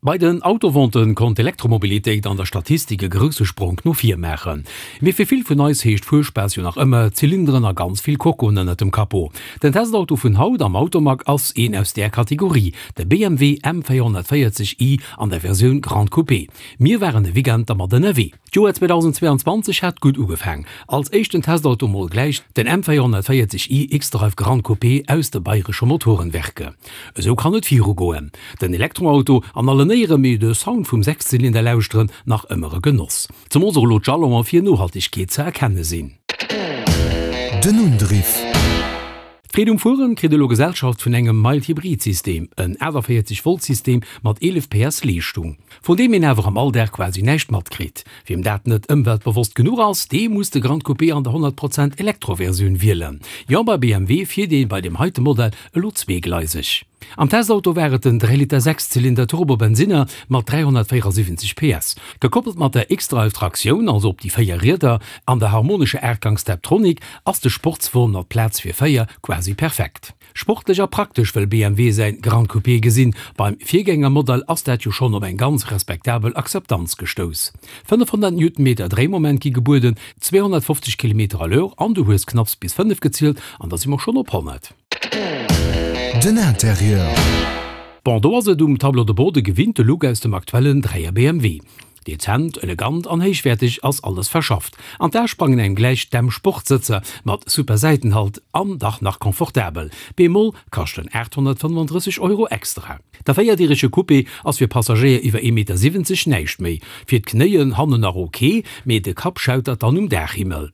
Bei den Autoventen konnt d'Elektromobilitéit an der Statistik e grousse Spronk no vir maachen. Mee fir vill vun eis heescht Fuerspaass jo nach ëmmer Zylinderen a ganz vill Kokoen ënnert dem Capot. Den Testauto vun haut am Automag ass een aus där Kategorie, de BMW M440i an der Versioun Grande Coupé. Mir waren e Weekend dermat ënnerwee. D'Joer 2022 hat gutt ugefaang. Als éischten Testauto mol gläich den M440i xDrive Gran Coupé aus de Bayresche Motorenwerke. Esou kann et viru goen. Den Elektroauto an allen Éiere, mee de Sound vum Sechszylinder lauschteren nach ëmmer e Genoss. Zemools och elo d'Jalonen fir Nohaltegkeet ze erkenne sinn. Den Undriff. D'Freed um Fueren kritt elo Gesellschaft vun engem Mild-Hybrid-System, en 48 Volt System mat 11 PS Leeschtung, vun deem een awer am Alldag quasi näischt matkritt. Wiem dat net ëmweltbewosst genuch ass, dee muss de Grand Coupé an der 100 Prozent Elektro-Versioun wielen. Jo, bei BMW fiert ee bei deem heite Modell elo zweegleiseg. Am Testauto war et den 3 Liter Sechszylinder Turbo-Bensinner mat 374 PS, gekoppelt mat der xDrive-Traktioun, also op déi 4 Rieder, an der harmonescher Aachtgangs Steptronic ass de Sportswon mat Plaz fir 4 quasi perfekt. Sportlech a praktesch wëll BMW säin Gran Coupé gesinn. Beim Virgängermodell ass dat jo schonn op eng ganz respektabel Akzeptanz gestouss. 500 Newtonmeter Dréimoment gi gebueden, 250 Kilometer à l'heure an du hues knapps bis 5 gezielt an da si mer schonn op 100. Den Interieur. Bon, do ass et um Tableau de bord de gewinnte Look aus dem aktuellen 3er BMW. Dezent, elegant an héichwäerteg ass alles verschafft. An d'A sprangen engem gläich d'M-Sport-Sëtzer mat super Säitenhalt an dach nach confortabel. Bemol kaschten 835 Euro extra. Der véierdirege Coupé ass fir Passagéier iwwer 1,70 Meter näischt méi. Fir d'Knéien hannen nach ok, mee de Kapp schautert dann um Daachhimmel.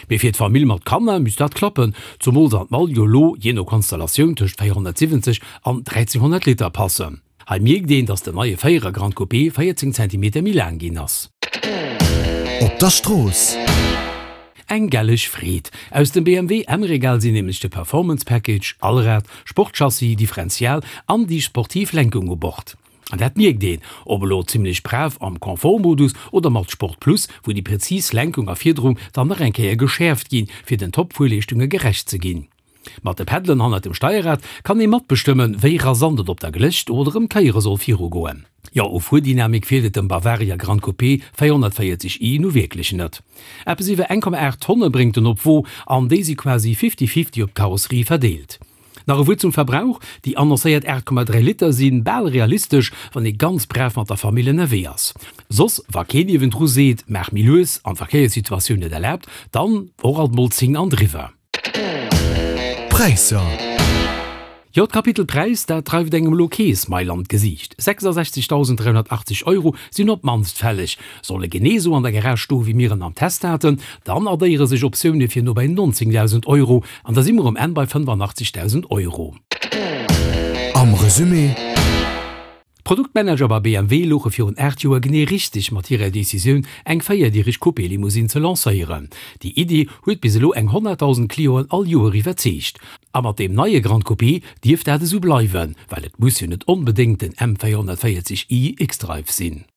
Mee fir d'Famill mat Kanner misst dat klappen, zumools an d'Mall jo lo jee no Konstellatioun tëscht 470 an 1300 Liter passen. Hei mierkt een, dass den neie Féierer Grand Coupé 14 Zentimeter méi laang ginn ass. Op der Strooss. Eng gelleg Freed! Aus dem BMW M-Regal sinn nämlech de Performance Package, Allrad, Sportchassis, Differential an déi sportiv Lenkung u Bord. An dat mierkt een, ob elo zimlech brav am Confort-Modus oder mat Sport Plus, wou déi präzis Lenkung a Fiederung dann nach eng Kéier geschäerft ginn, fir den Top-Fuerleeschtunge gerecht ze ginn. Mat de Peddelen hannert dem Steierrad kann ee matbestëmmen, wéi rasant et op der Glécht oder ëm Kéiere soll virugoen. Jo, u Fuerdynamik feelt et dem Bavaria Gran Coupé 440 i nu wierklech net. Eppes iwwer 1,8 Tonne bréngt en op d'Wo an déi si quasi fifty-fifty op d'Karosserie verdeelt. Nach e Wuert zum Verbrauch, Déi annoncéiert 8,3 Liter si bal realistesch, wann ee ganz brav mat der Famill ënnerwee ass. Soss, wa keen niewendru seet, maach méi lues an d'Verkéierssituatioun et erlaabt, dann och alt mol 10 an driwwer. Präisser. Jo, d'Kapitel Präis, dat dreift engem elo kee Smile an d'Gesiicht. 66.380 Euro sinn op d'mannst fälleg. Soll e genee esou an der Garage stoe wéi mir en am Test haten, dann addéiere sech Optioune fir no bei 19.000 Euro an da si mer um Enn bei 85.000 Euro. Am Resumé. D'Produktmanager bei BMW louche virun 8 Joer genee richteg mat hirer Decisioun, eng véierdireg Coupé-Limousine ze lancéieren. Déi Iddi huet bis elo eng 100.000 Clienten all Joer iwwerzeegt. A mat deem neie Gran Coupé dierft dat esou bleiwen, well et muss jo net onbedéngt den M 440 i xDrive sinn.